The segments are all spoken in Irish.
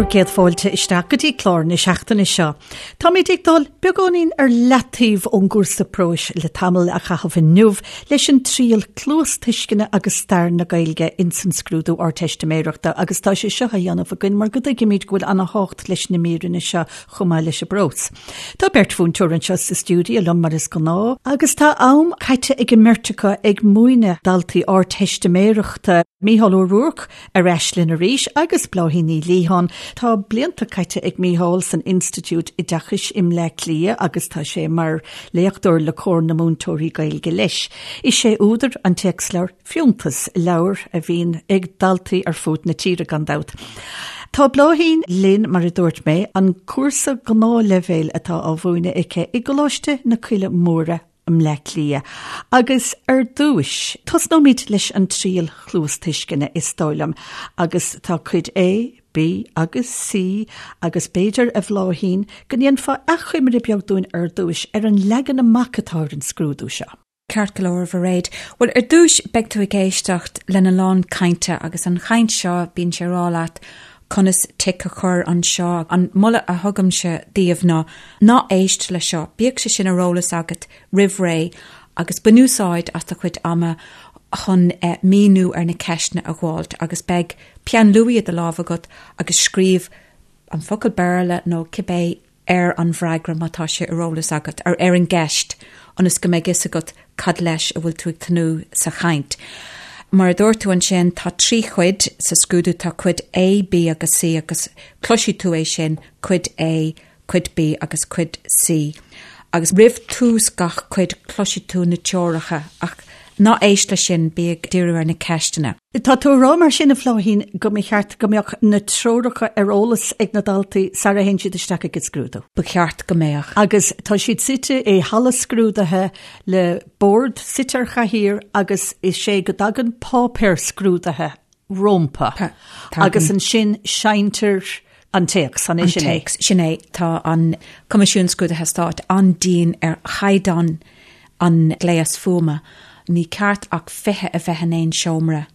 Bhur gcéad fáilte isteach go dtí clár na seachtaine seo. Táimid ag dul beagáinín ar leataobh ón gcúrsa próis le tamall a chaitheamh inniu leis an triail cluastuisceana agus stair na Gaeilge ins an scrúdú Ardteistiméireachta agus tá sé seo á dhéanamh againn mar go dtuigimid go bhfuil ana-thábhacht leis na míreanna seo chomh maith leis an bprós. Tá beirt mhúinteoir anseo sa stiúideo liom mar is gnáth agus tá am caite ag an mbeirt acu ag múineadh daltaí Ardteistiméireachta, Mícheál Ó Ruairc, Ar ais linn arís agus Bláithín Ní Liatháin. Tá blianta caite ag Mícheál san Institiúid Oideachais i mBleá Cliath agus tá sé mar léachtóir le Comhar na Múinteoirí Gaeilge leis. Is é údar an téacsleabhair Fiúntas, leabhar a bhíonn ag daltaí ar fud na tíre gan dabht. Tá Bláithín linn, mar a dúirt mé, an cúrsa gnáthleibhéil atá á mhúineadh aici i gColáiste na Coille Móire i mBleá Cliath. Agus ar dtúis, tosnóimid leis an triail chluastuisceana, is dóigh liom, agus tá cuid A, B agus C agus b'fhéidir, a Bhláithín, go ndéanfá achoimre beag dúinn ar dtúis ar an leagan amach atá ar an scrúdú seo. Ceart go leor, a Mhairéad. Bhuel, ar dtúis, beidh tú ag éisteacht lena lán cainte agus an chaint seo, bíonn sé ag rá leat conas tic a chur anseo. An moladh a thugaimse daoibh ná, ná éist le seo, bíodh sé sin ar eolas agat roimh ré agus bain úsáid as do chuid ama chun míniú ar na ceisteanna a dh'fháilt agus beidh peann luaidhe i do lámh agat agus scríobh an focal Béarla nó cibé ar an bhfreagra má tá sé ar eolas agat, ar ar an gceist, ionas go mbeidh fhios agat cad leis a bhfuil tú ag tnúth sa chaint. Mar a dúirt tú ansin, tá trí chuid sa scrúdú, tá cuid A, B agus C agus cloisfidh tú é sin, cuid A, cuid B agus cuid C. Agus roimh tús gach cuid cloisfidh tú na teoracha ach ná éist leis sin, bí ag díriú ar na ceisteanna. Tá tú ag rá mar sin, a Bhláithín, go mba cheart go mbeadh na treoracha ar eolas ag na daltaí sara théann siad isteach ag an scrúdú? Ba cheart go mbeadh. Agus tá siad suite i halla scrúdaithe le bord suite ar chathaoir agus is é go dtagann páipéar scrúdaithe rompu agus ansin seinntear an téacs, an é sin é? An téacs, sin é. Tá an Coimisiún Scrúduithe Stáit an-dian ar chaighdeán an gléas fuaime. Ní ceart ach 20 a bheith in aon seomra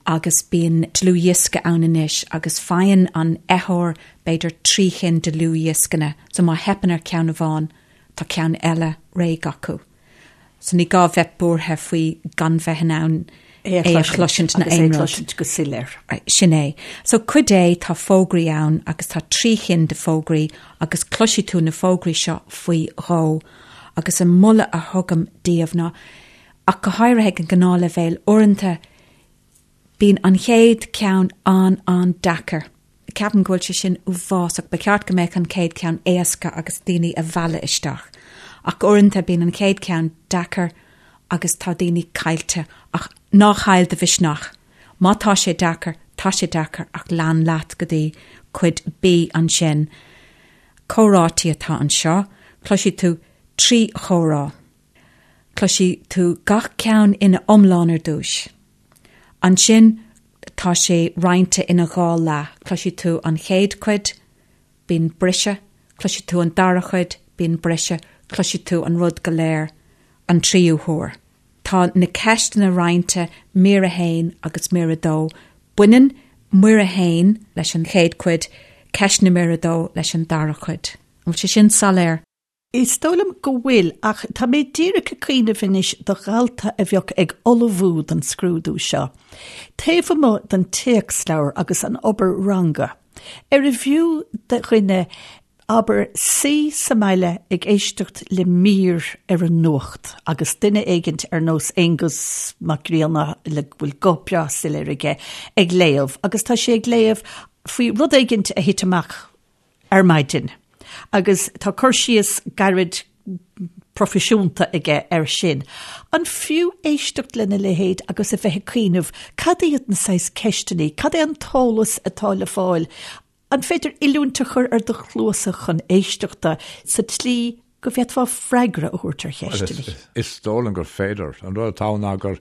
agus bíonn dlúthdhiosca ann anois agus faigheann an fheitheoir b'fhéidir trí chinn de dhlúthdhioscanna so má theipeann ar cheann amháin tá ceann eile réidh acu. So ní gá bheith buartha faoi gan bheith in ann é a chloisint nó aon rud. cloisint go soiléir. Sin é. So cuid A, tá fógraí ann agus tá trí chinn de fógraí agus cloisfidh tú na fógraí seo faoi dhó agus an moladh a thugaim daoibh ná, ach go háirithe ag an ngnáthleibhéal, uaireanta Bíonn an chéad cheann an-an-deacair. Ceapaim go bhfuil sé sin uafásach. Ba cheart go mbeadh an chéad cheann éasca agus daoine a mhealladh isteach. Ach uaireanta bíonn an chéad cheann deacair agus tá daoine caillte. Ach ná chaill do mhisneach. Má tá sé deacair, tá sé deacair ach lean leat go dtí cuid B ansin. Comhráití atá anseo. Cloisfidh tú trí chomhrá. Cloisfidh tú gach ceann ina iomlán ar dtús. Ansin tá sé roinnte ina dhá leath, cloisfidh tú an chéad chuid, bíonn briseadh, cloisfidh tú an dara chuid, bíonn briseadh, cloisfidh tú an rud go léir an tríú huair. Tá na ceisteanna roinnte mír 1 agus mír 2. Baineann mír 1 leis an chéad chuid, ceisteanna mír 2 leis an dara cuid. An bhfuil sé sin soiléir? Is dóigh liom go bhfuil, ach tá mé díreach ag cuimhneamh anois do dhalta a bheadh ag ullmhú don scrúdú seo, taobh amuigh den téacsleabhar agus an obair ranga, arbh fhiú do dhuine, abair, suí sa mbaile ag éisteacht le mír ar an nuacht agus duine éigint ar nós Aonghus Mac Grianna le go bhfuil guth breá soiléir aige ag léamh agus tá sé ag léamh faoi rud éigint a thit amach ar maidin agus tá cur síos gairid proifisiúnta aige air sin. An fiú éisteacht lena leithéid agus a bheith ag cuimhneamh cad iad na saghas ceisteanna, cad é an t-eolas atá le fáil? An féidir oiliúint a chur ar do chluasa chun éisteachta sa tslí go bhféadfá freagra a thabhairt ar cheisteanna. Is dóigh liom gur féidir. An rud atá ann ná gur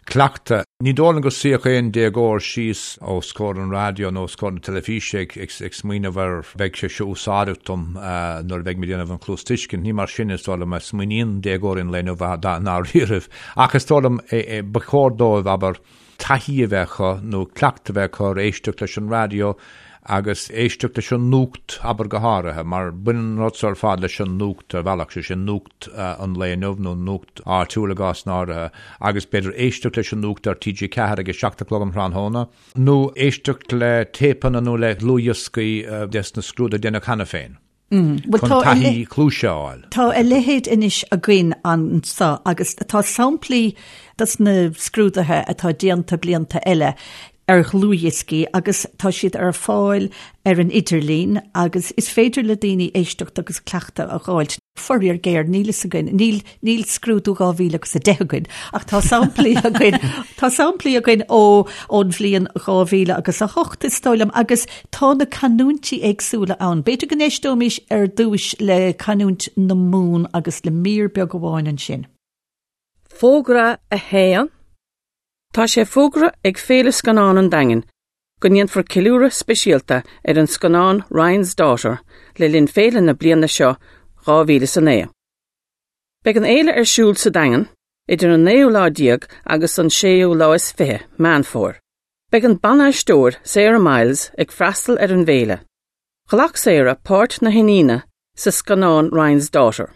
cleachtadh. Ní dóigh liom go suífeadh aon déagóir síos os comhair an raidió nó os comhair na teilifíse ag smaoineamh ar beidh sé seo úsáideach dom nuair a bheidh mé ag déanamh an chluastuiscint. Ní mar sin is dóigh liom a smaoiníonn déagóirí an lae inniu dáiríribh. Ach is dóigh liom ba chóir dóibh, abair, taithí a bheith acu nó cleachtadh a bheith acu ar éisteacht leis an raidió. Agus éisteacht leis an nuacht, abair go háirithe, mar baineann an rud seo ar fad leis an nuacht ar bhealach, sé sin nuacht an lae inniu nó nuacht áitiúil i gcásanna áirithe, agus b'fhéidir éisteacht leis an nuacht ar TG4 ag a 7 a chlog um thráthnóna, nó éisteacht le téipeanna nó le dlúthdhioscaí des na scrúduithe a déanadh cheana féin. Chun taithí cluaise a fháil. Tá a leithéid anois againn anso agus tá samplaí dos na scrúduithe atá déanta blianta eile ar dhlúthdhioscaí agus tá siad ar fáil ar an idirlíon agus is féidir le daoine éisteacht agus cleachtadh a dh'fháilt. Faraor géar, níl fhios againn, níl, níl scrúdú 2010 againn ach tá samplaí againn, tá samplaí againn ó, ón bhliain 2008 is dóigh liom agus Tá na canúintí éagsúla ann. B'fhéidir go n-éisteoimis ar dtúis le canúint na Mumhan agus le mír beag amháin ansin. Fógra 1. Tá sé fógartha ag Féile Scannán an Daingin go ndéanfar ceiliúradh speisialta ar an scannán Ryan's Daughter le linn féile na bliana seo 2009. Beidh an fhéile ar siúl sa Daingean idir an naoú lá déag agus an séú lá is 20 Meán Fómhair. Beidh an ban-aisteoir Sarah Miles ag freastal ar an bhféile. Ghlac Sarah páirt na hiníne sa scannán Ryan's Daughter,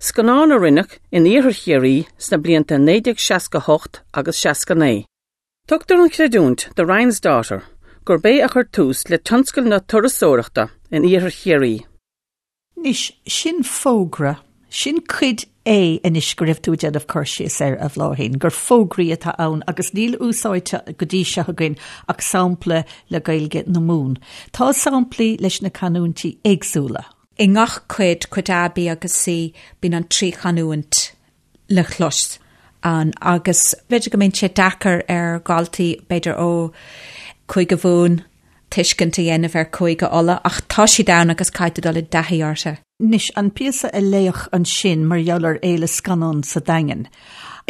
scannán a rinneadh in iarthar Chiarraí sna blianta 1968 agus 69. Tugtar an chreidiúint do Ryan's Daughter gurb é a chuir tús le tionscal na turasóireachta in iarthar Chiarraí. Anois, sin fógra, sin cuid A anois go raibh tú ag déanamh cur síos air, a Bhláithín, gur fógraí atá ann agus níl úsáidte go dtí seo againn ach sampla le Gaeilge na Mumhan. Tá samplaí leis na canúintí éagsúla. I ngach cuid, cuid A, B agus C, bíonn an trí chanúint le clos ann agus b'fhéidir go mbíonn sé deacair ar dhaltaí, b'fhéidir ó Chúige Mumhan, tuiscint a dhéanamh ar Chúige Uladh ach tá siad ann agus caithfidh tú dul i dtaithí orthu. Anois, an píosa a léadh ansin mar gheall ar Fhéile Scannán sa Daingean,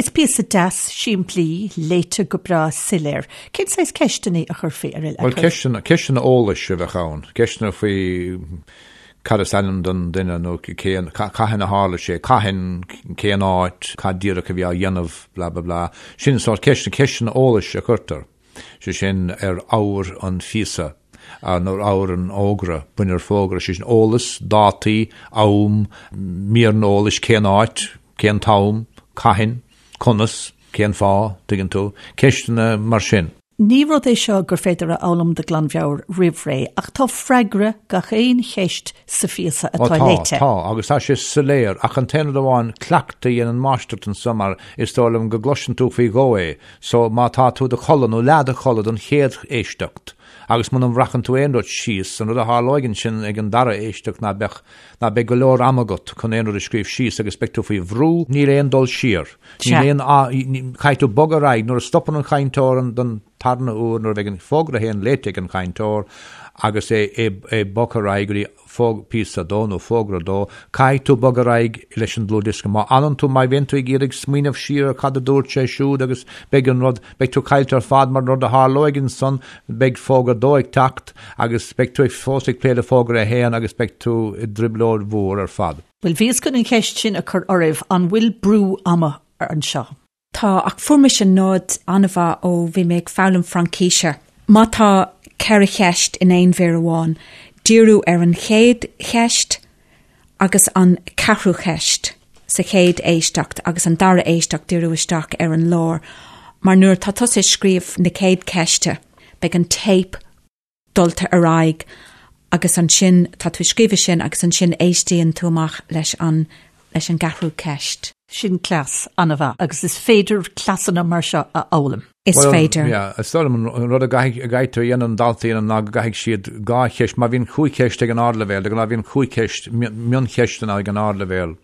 is píosa deas, simplí, léite go breá soiléir. Cén saghas ceisteanna a chuirfí ar Bhuel, ceisteanna, ceisteanna eolais a bheadh ann, ceisteanna faoi cad is ainm don duine nó cén, cathain a tharla sé, cathain, cén áit, cad díreach a bhí á dhéanamh, blah blah blah. Sin an sórt ceisteanna, ceisteanna eolais a chuirtear, sé sin ar ábhar an phíosa nó ar ábhar an fhógra, bunaithe ar fógra, sé sin eolas, dátaí, am, míreanna eolais, cén áit, cén t-am, cathain, conas, cén fáth, tuigeann tú, ceisteanna mar sin. Ní rud é seo gur féidir a fhoghlaim de ghlanmheabhair roimh ré, ach tá freagra gach aon cheist sa phíosa atá léite. Tá, tá, agus tá sé soiléir, ach an t-aon rud amháin, cleachtadh a dhéanann máistreacht anso mar is dóigh liom go gcloiseann tú faoi dhó é, so má tá tú i do chodladh nó leath i do chodladh don chéad éisteacht agus muna mbreacann tú aon rud síos, an rud a tharlóidh ansin ag an dara éisteacht ná beadh, ná beidh go leor ama agat chun aon rud a scríobh síos agus beidh tú faoi bhrú, níl aon dul siar. Níl aon, caithfidh tú bogadh ar aghaidh nuair a stopann an chainteoir an don tarna huair, nuair a bheidh an fógra a haon léite ag an chainteoir agus é é bogtha ar aghaidh go dtí fóg píosa a dó nó fógra a dó, caithfidh tú bogadh ar aghaidh leis an dlúthdhiosca. Má fhanann tú, má bhíonn tú ag iarraidh smaoineamh siar ar cad a dúirt sé siúd agus beidh an rud, beidh tú caillte ar fad mar an rud a tharlóidh ansan, beidh fógra a dó ag teacht agus beidh tú ag fós ag plé le fógra a haon agus beidh tú i dtrioblóid mhór ar fad. Bhuel, bhíos chun an cheist sin a chur oraibh, an bhfuil brú ama anseo? Tá, ach fuair mise nod an-mhaith ó bhí mé ag foghlaim Fraincíse. Má tá ceithre cheist in aon mhír amháin, díriú ar an chéad cheist agus an ceathrú cheist sa chéad éisteacht agus an dara éisteacht díriú isteach ar an lár, mar nuair atá tusa ag scríobh na céad ceiste, beidh an téip dulta ar aghaidh agus ansin tá tú ag scríobh sin agus ansin éistíonn tú amach leis an leis an gceathrú ceist. Sin cleas an-mhaith agus is féidir cleasanna mar seo a fhoghlaim. Is féidir. Bhuel, yeah, is dóigh liom an rud a gcaithfidh a gcaithfidh tú a dhéanamh an daltaí a dhéanamh ná go gcaithfidh siad dhá cheist, má bhíonn chúig cheist ag an ardleibhéal, de ghnáth bíonn chúig cheist, mioncheisteanna ag an ardleibhéal.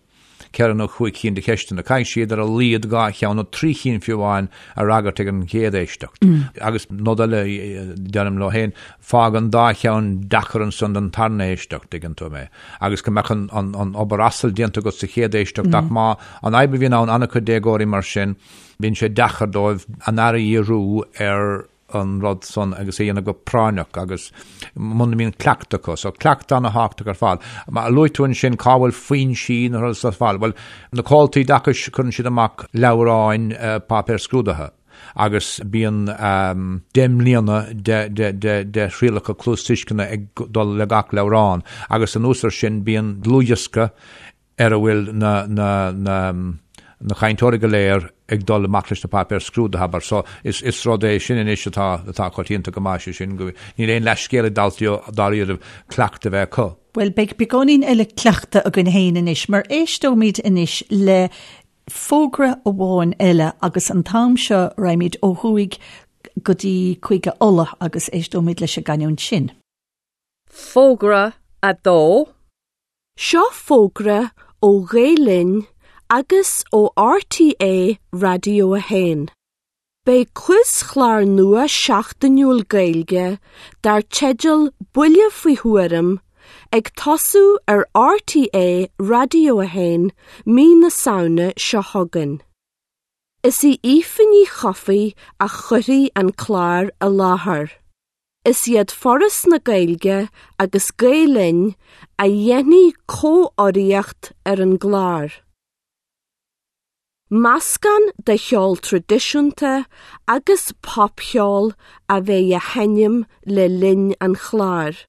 ceithre nó chúig chinn de cheisteanna. Caithfidh siad ar a laghad dhá cheann, nó trí chinn fiú amháin, a fhreagairt ag an gcéad éisteacht. Agus nod eile a deirim leo féin, fág an dá cheann deacair ansan don tarna éisteacht, tuigeann tú mé, agus go mbeadh an obair asail déanta agat sa chéad éisteacht ach má, an fhadhb a bhíonn ann, an-chuid déagóirí mar sin, bíonn sé deacair dóibh a n-aire a dhíriú ar an rud san agus é a dhéanamh go práinneach agus muna mbíonn cleachtadh acu. So cleachtadh ana-thábhachtach ar fad. Mar a luaigh tú ansin cá bhfuil foinsí na rudaí ar fáil. Bhuel, na comhaltaí oideachais cuireann siad amach leabhráin páipéir scrúdaithe. Agus bíonn 10 mbliana de thrialacha cluastuisceana ag dul le gach leabhrán agus anuas ar sin bíonn dlúthdhiosca ar a bhfuil na na na na cainteoirí go léir ag dul amach leis na páipéir scrúdaithe, abair. So is is rud é sin anois atá atá coitianta go maith, sé sin go níl aon leithscéal ag daltaí dáiríribh cleachtadh a bheith acu. Bhuel, beidh beagáinín eile cleachtaidh againn féin anois, mar éisteoimid anois le fógra amháin eile agus an t-am seo raghaimid ó thuaidh go dtí Cúige Uladh agus éisteoimid leis an gcanúint sin. Fógra 2. Seo fógra ó Ghael Linn agus ó RTÉ Raidió 1. Beidh quiz-chlár nua seachtainiúil Gaeilge dar teideal Buille Faoi Thuairim ag tosú ar RTÉ Raidió 1 mí na Samhna seo chugainn. Is í Aoife Ní Chofaigh a chuirfidh an clár i láthair. Is iad Foras na Gaeilge agus Gael Linn a dhéanfaidh comhurraíocht ar an gclár. Meascán de cheol traidisiúnta agus popcheol a bheidh á sheinm le linn an chláir,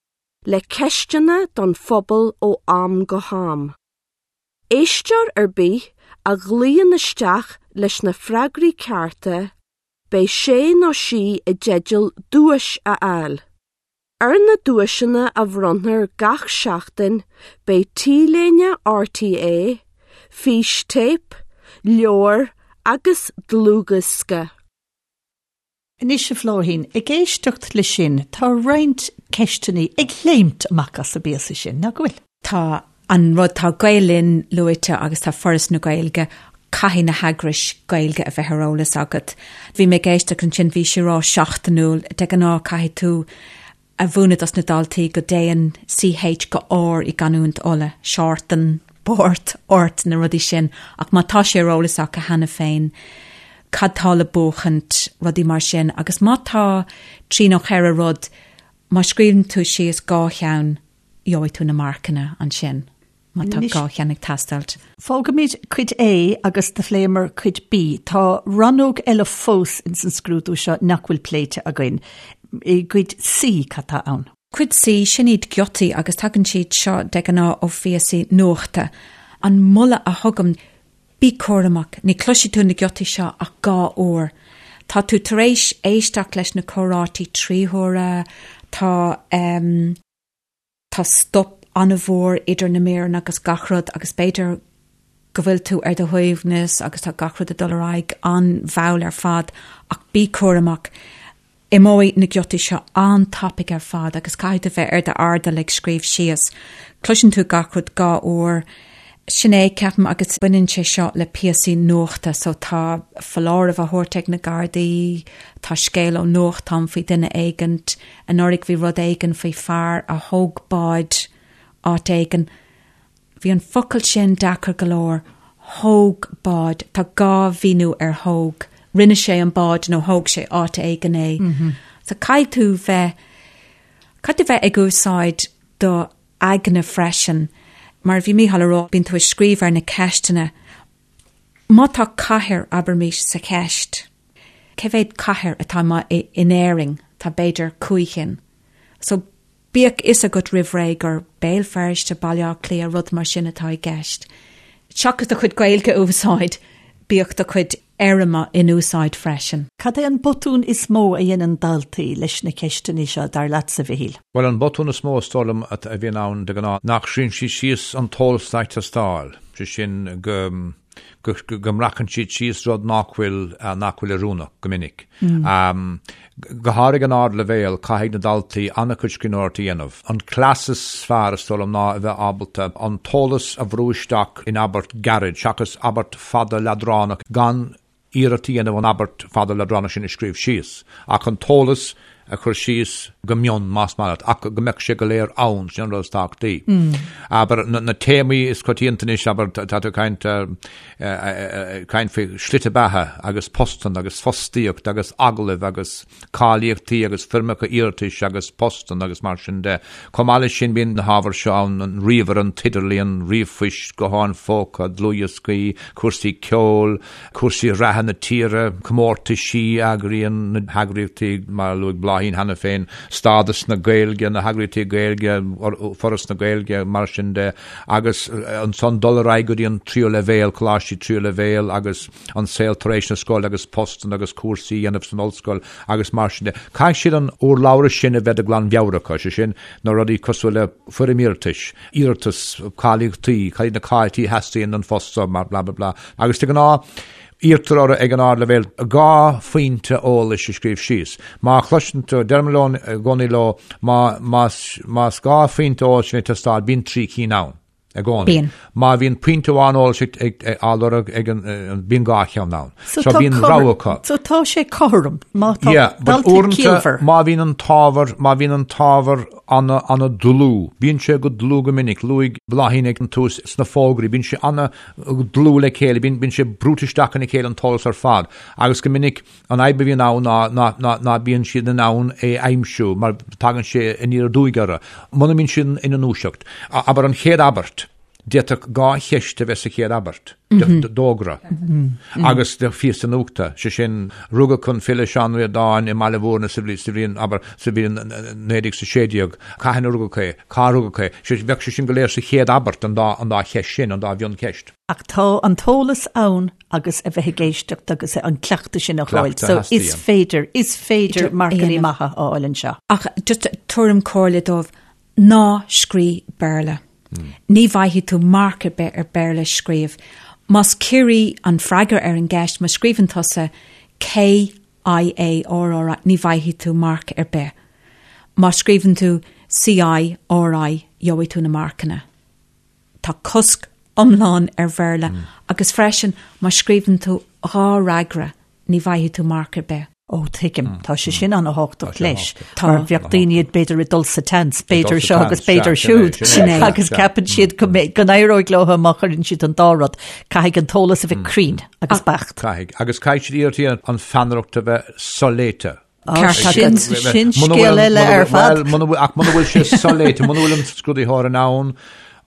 le ceisteanna don phobal ó am go ham. Éisteoir ar bith a ghlaonn isteach leis na freagraí cearta, beidh sé nó sí i dteideal duais a fháil. Ar na duaiseanna a bhronnfar gach seachtain beidh T-léine RTÉ, fístéip, leabhar agus dlúthdhiosca. Anois a Bhláithín, ag éisteacht le sin, tá roinnt ceisteanna ag léimt amach as an bpíosa sin, nach bhfuil? Tá an rud, tá Gael Linn luaite agus tá Foras na Gaeilge, caithfidh na heagrais Gaeilge a bheith ar eolas agat. Bhí mé ag éisteacht ansin, bhí sé ag rá seachtainiúil, de ghnáth caithfidh tú a mhúineadh dos na daltaí go dtéann CH go R i gcanúint Uladh, seártan, báirt, ort, na rudaí sin, ach má tá sé ar eolas acu cheana féin, cad tá le buachaint, rudaí mar sin, agus má tá trí nó cheithre rud, má scríobhann tú síos dhá cheann, gheobhaidh tú na marcanna ansin má tá dhá cheann ag teastáilt. Fágfaimid Cuid A agus do phléamar Cuid B. Tá rannóg eile fós ins an scrúdú seo nach bhfuil pléite againn. I gCuid C, cad tá ann? Cuid C, sin iad giotaí agus tagann siad seo de ghnáth ó phíosaí nuachta. An moladh a thugaim, bí cúramach, ní chloisfidh tú na giotaí seo ach dhá uair. Tá tú tar éis éisteacht leis na comhráití trí huaire, tá. Tá stop an-mhór idir na míreanna agus gach rud agus b'fhéidir go bhfuil tú ar do shuaimhneas agus tá gach rud ag dul ar aghaidh an-mhall ar fad ach bí cúramach. Imeoidh na giotaí seo an-tapaidh ar fad agus caithfidh tú bheith ar d'airdeall ag scríobh síos. Cloiseann tú gach rud dhá uair. Sin é, ceapaim, agus baineann sé seo le píosaí nuachta so tá foláireamh á thabhairt ag na Gardaí, tá scéal ó nuachtán faoi duine éigint, Anuraidh bhí rud éigin faoi fear a thóg bád áit éigin. Bhí an focal sin deacair go leor, thóg bád. Tá dhá mhíniú ar thóg. Rinne sé an bád nó thóg sé áit éigin é. So caithfidh tú bheith, caithfidh tú bheith ag úsáid do aigne freisin. Mar a bhí Mícheál a rá, bíonn tú ag scríobh ar na ceisteanna. Má tá cathair, abraimis, sa cheist, Cé mhéad cathair atá in Éirinn? Tá b'fhéidir cúig chinn. So bíodh fhios agat roimh ré gur Béal Feirste, Baile Átha Cliath, rud mar sin atá i gceist. Seachas do chuid Gaeilge a úsáid, bíodh do chuid éirime in úsáid freisin. Cad é an botún is mó a dhéanann daltaí leis na ceisteanna seo, dar leatsa, a Mhichíl? Bhuel, an botún is mó is dóigh liom a bhíonn ann de ghnáth, nach scríobhann siad síos an t-eolas atá ag teastáil, sé sin go go mbreacann siad síos rud nach bhfuil, nach bhfuil oiriúnach go minic. Go háirithe ag an ardleibhéal, caithfidh na daltaí an-chuid scríbhneoireachta a dhéanamh. An cleas is fearr, is dóigh liom, ná a bheith ábalta an t-eolas a bhrú isteach in abairt gairid, seachas abairt fada leadránach, gan iarracht a dhéanamh an abairt fada leadránach sin a scríobh síos, ach an t-eolas. a chur síos go mion, más maith leat, ach go mbeadh sé go léir ann, sin an rud is tábhachtaí. Abair, na téamaí is coitianta anois, abair, tá tú ag caint, caint faoi shlite beatha agus postanna agus fostaíocht agus agallaimh agus cáilíochtaí agus foirmeacha iarratais agus postanna agus mar sin de. Chomh maith leis sin bíonn na hábhair seo ann, an ríomhaire, an t-idirlíon, ríomhphoist, gutháin phóca, dlúthdhioscaí, cúrsaí ceoil, cúrsaí reatha na tíre, comórtaisí a eagraíonn na heagraíochtaí, mar a luaigh Bláithín cheana féin, stádas na Gaeilge, na heagraíochtaí Gaeilge, Foras na Gaeilge, mar sin de, agus ansan dul ar aghaidh go dtí an tríú leibhéal, coláistí tríú leibhéal agus an saol tar éis na scoile agus postanna agus cúrsaí a dhéanamh san ollscoil agus mar sin de. Caithfidh siad an urlabhra sin a bheith de ghlanmheabhair acu, sé sin, na rudaí cosúil le foirm iarratais, iarratas, cáilíochtaí, cad iad na cáilíochtaí a theastaíonn don phost seo, blah blah blah. Agus de ghnáth, iarrtar orthu ag an ardleibhéal 2 phointe eolais a scríobh síos. Má chloiseann tú, deirim leo i gcónaí leo, má, más, más 2 phointe eolais a bhíonn ag teastáil, bíonn 3 cinn ann. I gcónaí. Bíonn. Má bhíonn pointe amháin eolais ag, ag, ag, á lorg ag an, bíonn 2 cheann ann. So, So tá bíonn cothrom- rogha acu. So tá sé cothrom, má tá Yeah, but dalta uaireanta ciallmhar. má bhíonn an t-ábhar, má bhíonn an t-ábhar ana, ana dlúth, bíonn sé go dlúth go minic, luaigh Bláithín ag an tús sna fógraí, bíonn sé ana dlúth le chéile, bíonn, bíonn sé brúite isteach ina chéile an t-eolas ar fad, agus go minic an fhadhb a bhíonn ann ná, ná, ná, ná bíonn siad in ann é a aimsiú mar tagann sé aniar aduaidh orthu, muna mbíonn siad ina ndúiseacht. Abair an chéad abairt, d'fhéadfadh 2 cheist a bheith sa chéad abairt d'fhógra agus de phíosa nuachta, sé sin, rugadh an file Seán Ó Ríordáin i mBaile Mhúirne sa bhliain, abair, sa bhliain 1916, cathain a rugadh é, cá rugadh é, bheadh sé sin go léir sa chéad abairt, an dá, an dá cheist sin, an dá mhioncheist. Ach tá an t-eolas ann agus a bheith ag éisteacht agus an cleachtadh sin a fháil. So is féidir, is féidir marcanna maithe a fháil anseo. Ach just tuairim comhairle dóibh, Ná scríobh Béarla. Ní bhfaighidh tú marc ar bith ar Béarla a scríobh. Más Ciarraí an freagra ar an gceist, má scríobhann tusa K I A R R I, ní bhfaighidh tú marc ar bith. Má scríobhann tú C I R I, gheobhaidh tú na marcanna. Tá cosc iomlán ar Bhéarla agus freisin má scríobhann tú 2 fhreagra ní bhfaighidh tú marc ar bith. Ó, tuigim. Tá sé sin an-thábhachtach leis. Mar bheadh daoine b'fhéidir ag dul sa tseans, b'fhéidir seo agus b'fhéidir siúd. Agus ceapann siad go n-éireoidh leo má chuireann siad an dá rud. Caithfidh an t-eolas a bheith cruinn agus beacht. Caithfidh. Agus caithfidh siad iarracht a dhéanamh an pheannaireacht a bheith soléite. Ceart agat. Sin scéal eile ar fad. Ach muna bhfuil sé soléite, muna bhfuil an scrúdaitheoir in ann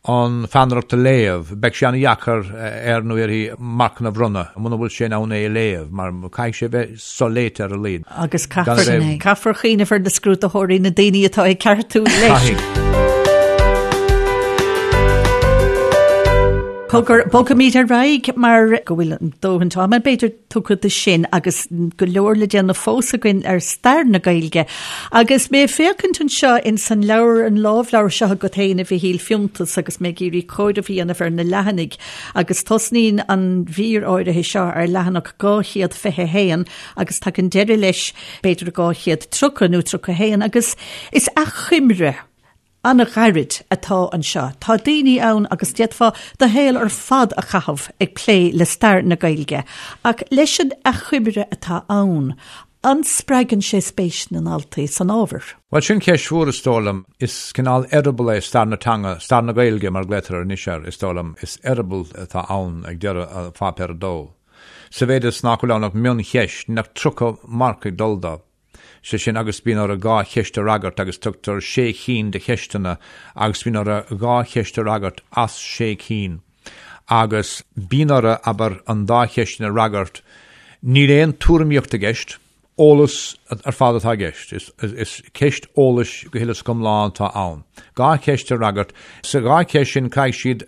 an pheannaireacht a léamh, beidh sé an-dheacair air nó uirthi marcanna a bhronnadh muna bhfuil sé in ann é a léamh, mar caithfidh sé a bheith soléite ar a laghad. Agus caithfear cuimhneamh ar na scrúdaitheoirí, na daoine atá ag ceartú leis. Cogar, bogfaimid ar aghaidh mar go bhfuil an dóthain ama, b'fhéidir, tugtha do sin agus go leor le déanamh fós againn ar stair na Gaeilge. Agus mé ag féachaint anseo ins an leabhar, an lámhleabhar seo agat féin, a Mhichíl, Fiúntas agus mé ag iarraidh comhaireamh a dhéanamh ar na leathanaigh agus tosnaíonn an mhír áirithe seo ar leathanach 221 agus tagann deireadh leis b'fhéidir 230 nó 31 agus is achoimre an-ghairid atá anseo. Tá daoine ann agus d'fhéadfá do shaol ar fad a chaitheamh ag plé le stair na Gaeilge, ach leis an achoimre atá ann, an spreagann sé spéis na ndaltaí san ábhar? Bhuel, sin ceist mhór, is dóigh liom. Is cineál eireaball é stair na teanga, stair na Gaeilge mar a ghlaotar anois air, is dóigh liom. Is eireaball atá ann ag deireadh pháipéar a dó. Sa mhéid is nach bhfuil ann ach mioncheist, níl ach 30 marc ag dul dó. Sé sin, agus bíonn orthu 2 cheist a fhreagairt agus tugtar sé chinn de cheisteanna agus bíonn orthu 2 cheist a fhreagairt as sé cinn. Agus bíonn orthu, abair, an dá cheist sin a fhreagairt. Níl aon tuairimíocht i gceist, eolas ar fad atá i gceist. Is ceist eolais go huile is go hiomlán atá ann. 2 cheist a fhreagairt. Sa dhá cheist sin caithfidh siad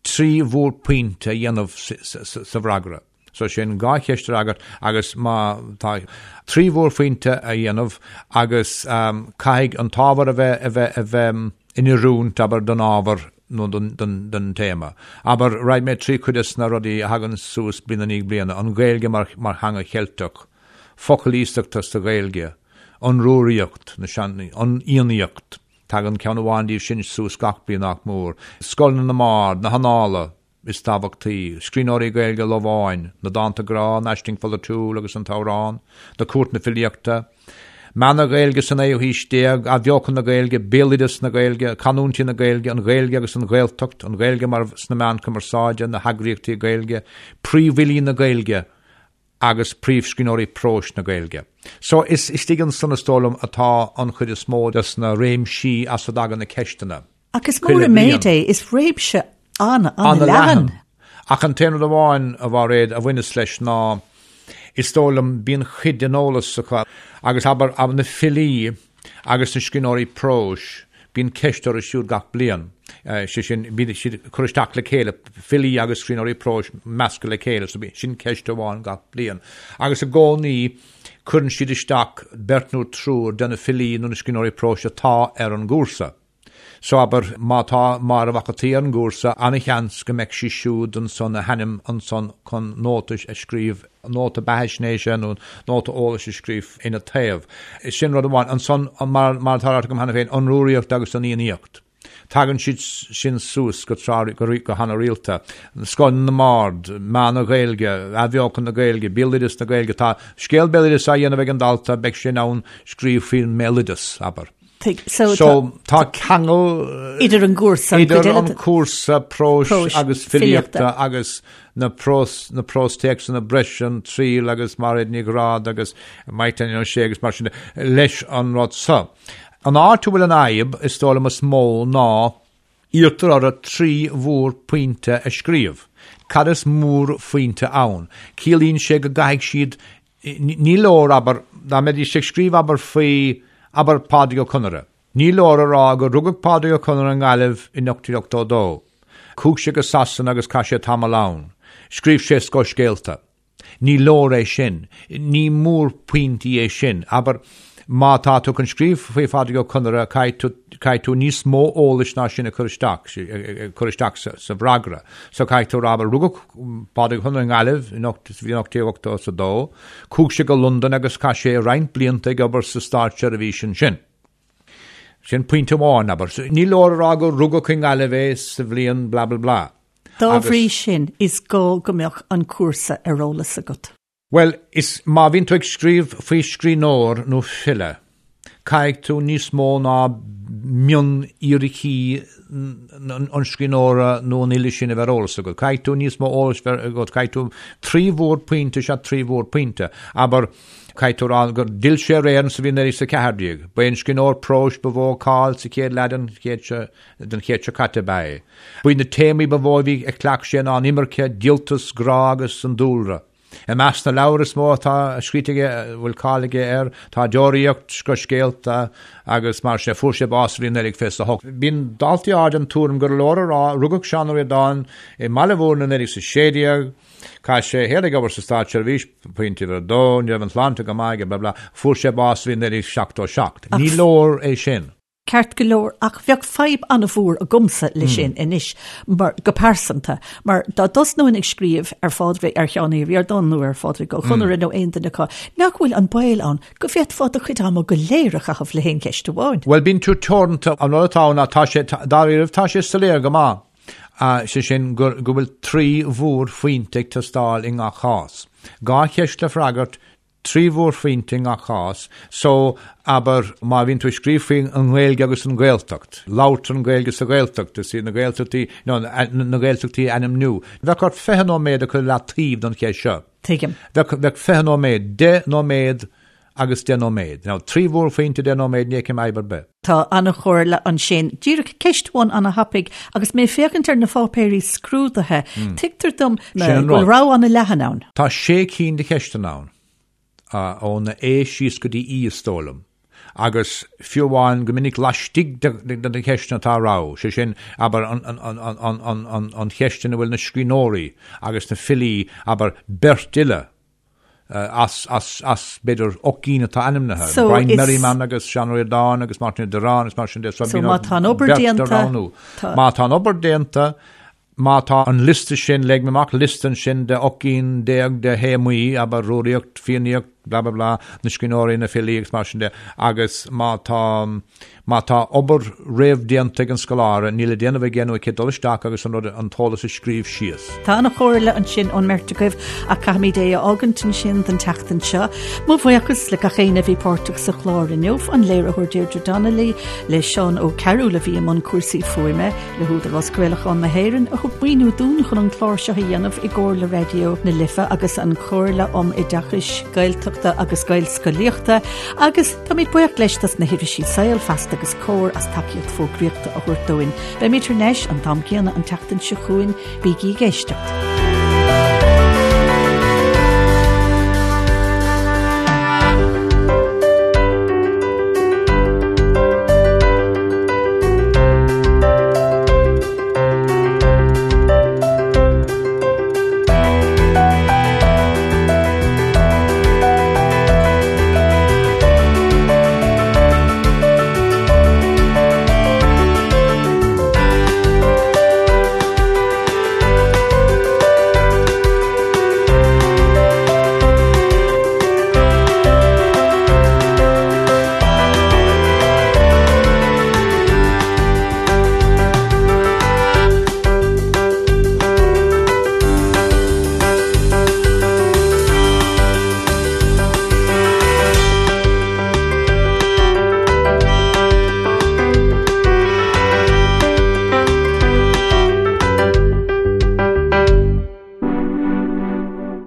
3 mhórphointe a dhéanamh sa bhfreagra. So sin 2 cheist a fhreagairt agus má tá 3 mhórphointe a dhéanamh agus caithfidh an t-ábhar a bheith a bheith a bheith in oiriúint, abair, don ábhar nó don don don téama. Abair, rachaidh mé trí chuid des na rudaí a thagann suas bliain i ndiaidh bliana, an Ghaeilge mar mar theanga Cheilteach, focail iasachta sa Ghaeilge, an Rúraíocht, na sean, an Fhiannaíocht, Tagann ceann amháin díobh sin suas gach bliain nach mór. Scoileanna na mBard, na hAnnála is tábhachtaí, scríbhneoirí Gaeilge Lováin, na dánta grá, an aisling pholaitiúil agus an t-amhrán, na cúirteanna filíochta. Meath na Gaeilge sa naoú haois déag, Athbheochan na Gaeilge, Béaloideas na Gaeilge, Canúintí na Gaeilge, An Ghaeilge agus an Ghaeltacht, An Ghaeilge mar sna meáin cumarsáide, Na heagraíochtaí Gaeilge, Príomhfhilí na Gaeilge agus Príomhscríbhneoirí próis na Gaeilge. So is istigh ansan is dóigh liom atá an chuid is mó des na réimsí as a dtagann na ceisteanna. Ach is mór an méid é, is réimse an-an-leathan. Ach an t-aon rud amháin, a Mhairéad, a bhaineas leis ná, is dóigh liom, bíonn cuid den eolas acu, agus abair, na filí agus na scríbhneoirí próis, bíonn ceist orthu siúd gach bliain. Sé sin, bíonn siad ag cur isteach le chéile, filí agus scríbhneoirí próis measctha le chéile, so sin ceist amháin gach bliain. Agus i gcónaí cuireann siad isteach beirt nó triúr de na filí nó na scríbhneoirí próis atá ar an gcúrsa. So abair, má tá Máire Mhac an tSaoi ar an gcúrsa, ana-sheans go mbeidh sí siúd ansan, a hainm ansan chun nóta a scríobh, nóta beathaisnéise nó nóta eolais a scríobh ina taobh. Sin rud amháin. Ansan, mar atá ráite agam cheana féin, an Rúraíocht agus an Fhiannaíocht. Tagann siad sin suas go tráth, go hana-rialta. Scoth na mBard, Meath na Gaeilge, Athbheochan na Gaeilge, Béaloideas na Gaeilge. Tá scéal béaloidis á dhéanamh ag an dalta, beidh sé in ann scríobh faoin mbéaloideas, abair. So, so tá ceangal idir an gcúrsa idir an cúrsa próis agus filíochta agus na prós na próstéacsanna breise an triail agus Mairéad Ní Ghráda agus Mike Daniel O'Shea agus mar sin leis an rud seo. An áit a bhfuil an fhadhb is dóigh liom is mó ná Iarrtar orthu 3 mhórphointe a scríobh. Cad is mórphointe ann? Ciallaíonn sé go gcaithfidh siad, ní leor, abair, dá mbeidís ag scríobh, abair, faoi, abair, Pádraig Ó Conaire. Ní leor a rá gur rugadh Pádraig Ó Conaire i nGaillimh in 1882. Chuaigh sé go Sasana agus chaith sé tamall ann. Scríobh sé scothscéalta. Ní leor é sin. Ní mórphointí é sin. Abair, má tá tú chun scríobh faoi Phádraig Ó Conaire, caithfidh tú, caithfidh tú níos mó eolais ná sin a chur isteach, a chur isteach sa, sa bhfreagra. So caithfidh tú a rá, abair, rugadh Pádraig Ó Conaire i nGaillimh in ocht, sa bhliain 1882, chuaigh sé go Londain agus chaith sé roinnt blianta ag obair sa státseirbhís ansin. Sin pointe amháin, abair. Ní leor a rá gur rugadh i nGaillimh é sa bhliain blah blah blah. Dá bhrí sin, is gá go mbeadh an cúrsa ar eolas agat. Bhuel, is má bhíonn tú ag scríobh faoi scríbhneoir nó file, caithfidh tú níos mó ná mionfhíricí an scríbhneora nó an fhile sin a bheith ar eolas agat. Caithfidh tú níos mó eolais bheith agat, caithfidh tú 3 mhórphointe is ea 3 mhórphointe. Abair, caithfidh tú a rá gur d'fhill sé ar Éirinn sa bhliain 1914. Ba é an scríbhneoir próis ba mhó cáil sa chéad leath den chéad seo den chéad seo caite ab ea é. Ba iad na téamaí ba mhó a bhí a chleacht sé ná an imirce, díoltas, grá agus an dúlra. I measc na leabhar is mó atá scríte aige a bhfuil cáil aige air tá Deoraíocht, Scothscéalta agus mar sin. Fuair sé bás sa bhliain 1928. Bíonn daltaí áirithe den tuairim gur leor a rá, rugadh Seán Ó Ríordáin i mBaile Mhúirne i 1916, chaith sé a shaol ag obair sa státseirbhís, pointe uimhir a dó, ní raibh an tsláinte go maith aige, blah blah, fuair sé bás sa bhliain 1977. Ní leor é sin. Ceart go leor, ach bheadh fadhb an-mhór agamsa leis sin anois, mar, go pearsanta, mar dá dtosnóinn ag scríobh ar Phádraig, ar Sheán Ó Ríordáin nó ar Phádraig Ó Conaire nó aon duine acu, nach bhfuil an baol ann go bhféadfá do chuid ama go léir a chaitheamh le haon cheist amháin? Bhuel, bíonn tú teoranta, an rud atá ann ná tá sé, dáiríribh, tá sé soiléir go maith, sé sin, go bhfuil 3 mhórphointe ag teastáil i ngach cás. 2 cheist le freagairt, 3 mhórphointe i ngach cás, so, abair, má bhíonn tú ag scríobh faoi an nGaeilge agus an Ghaeltacht, labhartar an Ghaeilge sa Ghaeltacht, is iad na Gaeltachtaí, no, na Gaeltachtaí a ainmniú. Bheadh ort 20 nóiméad a chur i leataobh don cheist seo. Tuigim. Bheadh, bheadh 20 nóiméad, 10 nóiméad agus 10 nóiméad. Now, 3 mhórphointe, 10 nóiméad, ní fheicim fadhb ar bith. Tá an-chomhairle ansin. Díreach ceist amháin an-thapaidh, agus mé ag féachaint ar na pháipéirí scrúdaithe, tuigtear dom go bhfuil rogha an-leathan ann. Tá sé cinn de cheisteanna ann, ón A síos go dtí E is dóigh liom, agus fiú amháin go minic laistigh de na ceisteanna tá rogha, sé sin, abair, an cheist ina bhfuil na scríbhneoirí agus na filí, abair, beirt fhile, as, as, as, b'fhéidir, 8 gcinn atá ainmnithe, So, Brian is- Merriman agus Seán Ó Ríordáin agus Máirtín Ó Direáin agus mar sin de. So, má tá an obair déanta, tá- Má tá an obair déanta, má tá an liosta sin, leag mé amach liosta ansin de 18 gcinn de théamaí, abair, Rúraíocht, Fiannaíocht, Blah blah blah, na scríbhneoirí, na filí agus mar sin de, agus má tá, má tá obair réamhdhéanta ag an scoláire, níl le déanamh aige nó aici dul isteach agus an rud, an t-eolas a scríobh síos. Tá an-chomhairle ansin ón mbeirt agaibh ach caithfimid é a fhágaint ansin don tseachtain seo. Mo bhuíochas le gach éinne a bhí páirteach sa chlár inniu, an léiritheoir Deirdre Donnelly, le Seán Ó Cearúil a bhí i mbun cúrsaí fuaime, Le hÚdarás Craolacháin na hÉireann a thug maoiniú dúinn chun an clár seo a dhéanamh i gcomhar le Raidió na Life agus an Chomhairle um Oideachais Gaeltachta agus Gaelscolaíochta agus táimid buíoch leis dos na hirisí Saol, Feasta agus Comhar as tacaíocht fógraíochta a thabhairt dúinn. Beimid thar n-ais an t-am céanna an tseachtain seo chugainn, bígí ag éisteacht.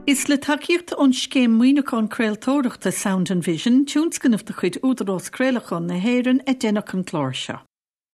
Is le tacaíocht ón Scéim Maoiniúcháin Craoltóireachta Sound and Vision, tionscnamh de chuid Údarás Craolacháin na hÉireann, a deineadh an clár seo.